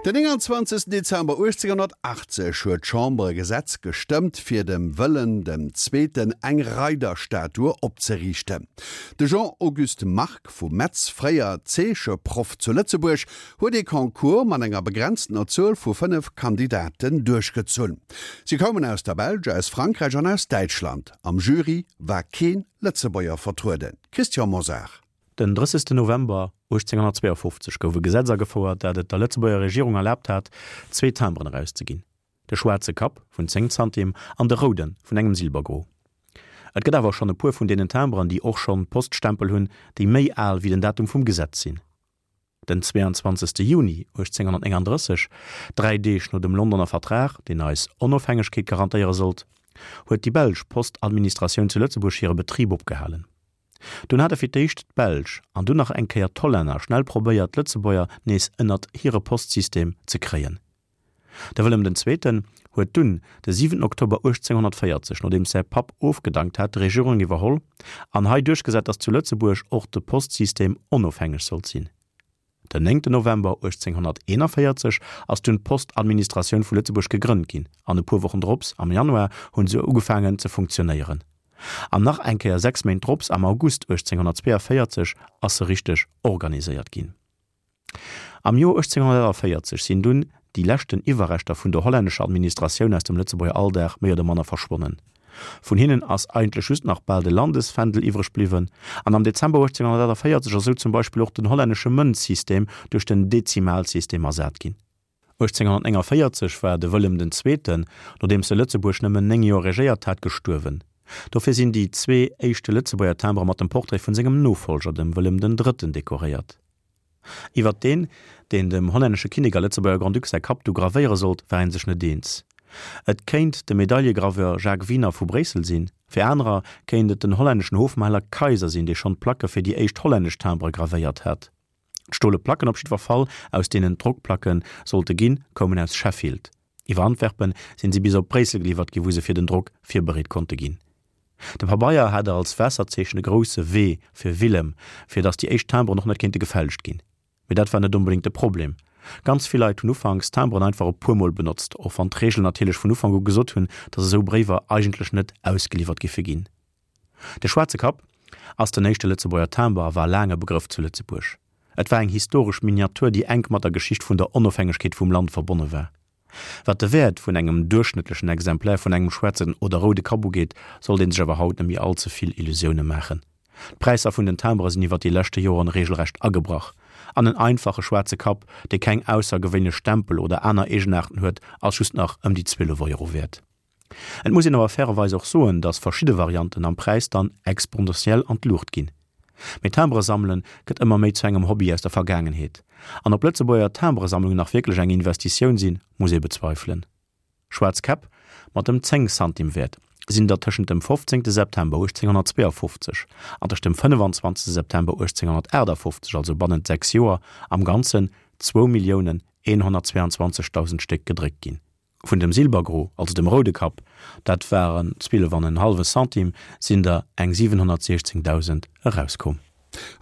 Den 29 Dezember 1880 huet d'Chamber e Gesetz gestëmmt, fir dem Wëllem dem Zweeten eng Reiderstatue opzeriichten. De Jean-Auguste Margue vu Metz, fréier Zeecheproff zu Lëtzebuerg, huet ee Concours mat enger begrenztener Zuel vu 5 Kandidaten duerchgezunn. Si koumen aus der Belsch, aus Frankräich an aus Däitschland. Am Jury war kee Lëtzebuerger vertrueden. Christian Mosar. Den 30 November 1852 gouf e Gesetz agefouert, dat et der Lëtzebuerger Regierung erlaabt hat, zwee Timberen erauszeginn, de schwaarze Kapp vun 10 Zantim an de roude vun engem Silbergros. Et gëtt awer schonn e puer vun deenen Timberen, déi och schonn Poststempel hunn, déi méi al wéi den Datum vum Gesetz sinn. Den 22 Juni 1839, dräi Deeg no dem Londoner Vertrag, deen eis Onofhängegkeet garantéiere sollt, huet déi belsch Postadministratioun zu Lëtzebuerg hire Betrib opgehalen. Dunn hate fir d'éischt d'Belsch an dunn nach eng Kéier d'Hollänner schnell probéiert, d'Lëtzebuerger nees ënnert hire Postsystem ze kréien. De Wëllem den Zweeten huet dunn de 7 Oktober 1840, nodeems säi Papp ofgedankt hat, d'Regierung iwwerholl an hei duerchgesat, datt zu Lëtzebuerg och de Postsystem onofhängeg sollt sinn. Den 9 November 1841 ass dunn d'Postadministratioun vu Lëtzebuerg gegrënnt ginn an e puer Wochen drops, am Januar, hunn se ugefaangen ze funktionéieren. An nach eng Kéier 6 Méint drops, am August 1842, ass se richteg organiséiert ginn. Am Joer 1848 sinn dunn déi leschten Iwwerreschter vun der hollännescher Administratioun aus dem Lëtzebuerger Alldag méi oder manner verschwonnen. Vun hinnen ass eigentlech just nach bal de Landesfändel iwwreg bliwwen, an am Dezember 1848 ass esou zum Beispill och den hollännesche Mënzsystem duerch den Dezimalsystem ersat ginn. 1849 war de Wëllem den Zweeten, nodeems e Lëtzebuerg nëmmen 9 Joer regéiert hat, gestuerwen. Dofir sinn déi zwee éischte Lëtzebuerger Timbere mat dem Portrait vun sengem Nofollger, dem Wëllem den Drëtten, dekoréiert. Iwwert deen, deen dem hollännesche Kinnek a Lëtzebuerger Grand-Duc säi Kapp du gravéiere sollt, war ee sech net eens. Et kéint de Medaillegraveur Jacques Wiener vu Bréissel sinn, fir anerer kéint et den hollänneschen Hofmaler Kayser sinn, dee schonn d'Placke fir déi éischt hollännesch Timbere gravéiert hat. D'stole Placken op jiddwer Fall, aus deenen d'Drockplacke sollte ginn, koumen aus Sheffield. Iwwer Antwerpen sinn si bis op Bréissel geliwwert ginn, wou se fir den Drock virbereet konnte ginn. De Pabeier hat als Waasserzeechen e grousse W fir Willem, fir datt déi éischt Timberen och net kéinte gefälscht ginn. Mee dat war net onbedéngt de Problem. Ganz vill Leit hunn ufanks Timberen einfach e puer Mol benotzt, och wann d'Reegelen natierlech vun Ufank u gesot hunn, datt esou Bréiwer eigentlech net ausgeliwwert giffe ginn. De schwaarze Kapp ass den éischte Lëtzebuerger Timber a war laang e Begrëff zu Lëtzebuerg. Et war eng historesch Miniatur, déi enk mat der Geschicht vun der Onofhängegkeet vum Land verbonne war. Wat de Wäert vun engem duerchschnëttlechen Exemplaire vun engem schwaarzen oder roude Kapp ugeet, sollt ee sech awer haut net méi all ze vill Illusioune maachen. D'Präisser vun den Timbere sinn iwwer déi leschte Joren reegelrecht agebrach, an en einfache schwaarze Kapp, dee keng aussergewéinlech Stempel oder aner Eegenaarten huet, ass just nach ëm déi 12 Euro wäert. Et muss een awer fairerweis och soen, dass verschidde Varianten am Präis dann exponentiell an d'Luucht ginn. Mee Timbere sammelen gëtt ëmmer méi zu engem Hobby aus der Vergaangenheet. An ob Lëtzebuerger Timberesammlungen nach wierklech eng Investitioun sinn, muss ee bezweifelen. Schwaarz Käpp mat dem 10 Santim Wäert sinn der tëschent dem 15 September 1852 an tëscht dem 25 September 1858, also bannent 6 Joer, am Ganzen 2.122.000 Stéck gedréckt ginn. Vun dem Silbergro, also dem roude Kapp, dat waren 12 an en hallwe Centime, sinn der eng 716.000 erauskomm.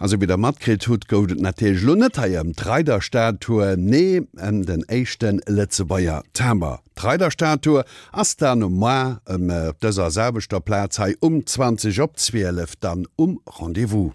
A sou wéi der matkritt hutt, gouf et natierlech elo net hei ëm d'Reiderstatue, nee ëm den éischte Lëtzebuerger Timber. D'Reiderstatue ass dann moar ëm op dëser selwechter Plaz hei um 20 op 12 dann um Rendez-vous.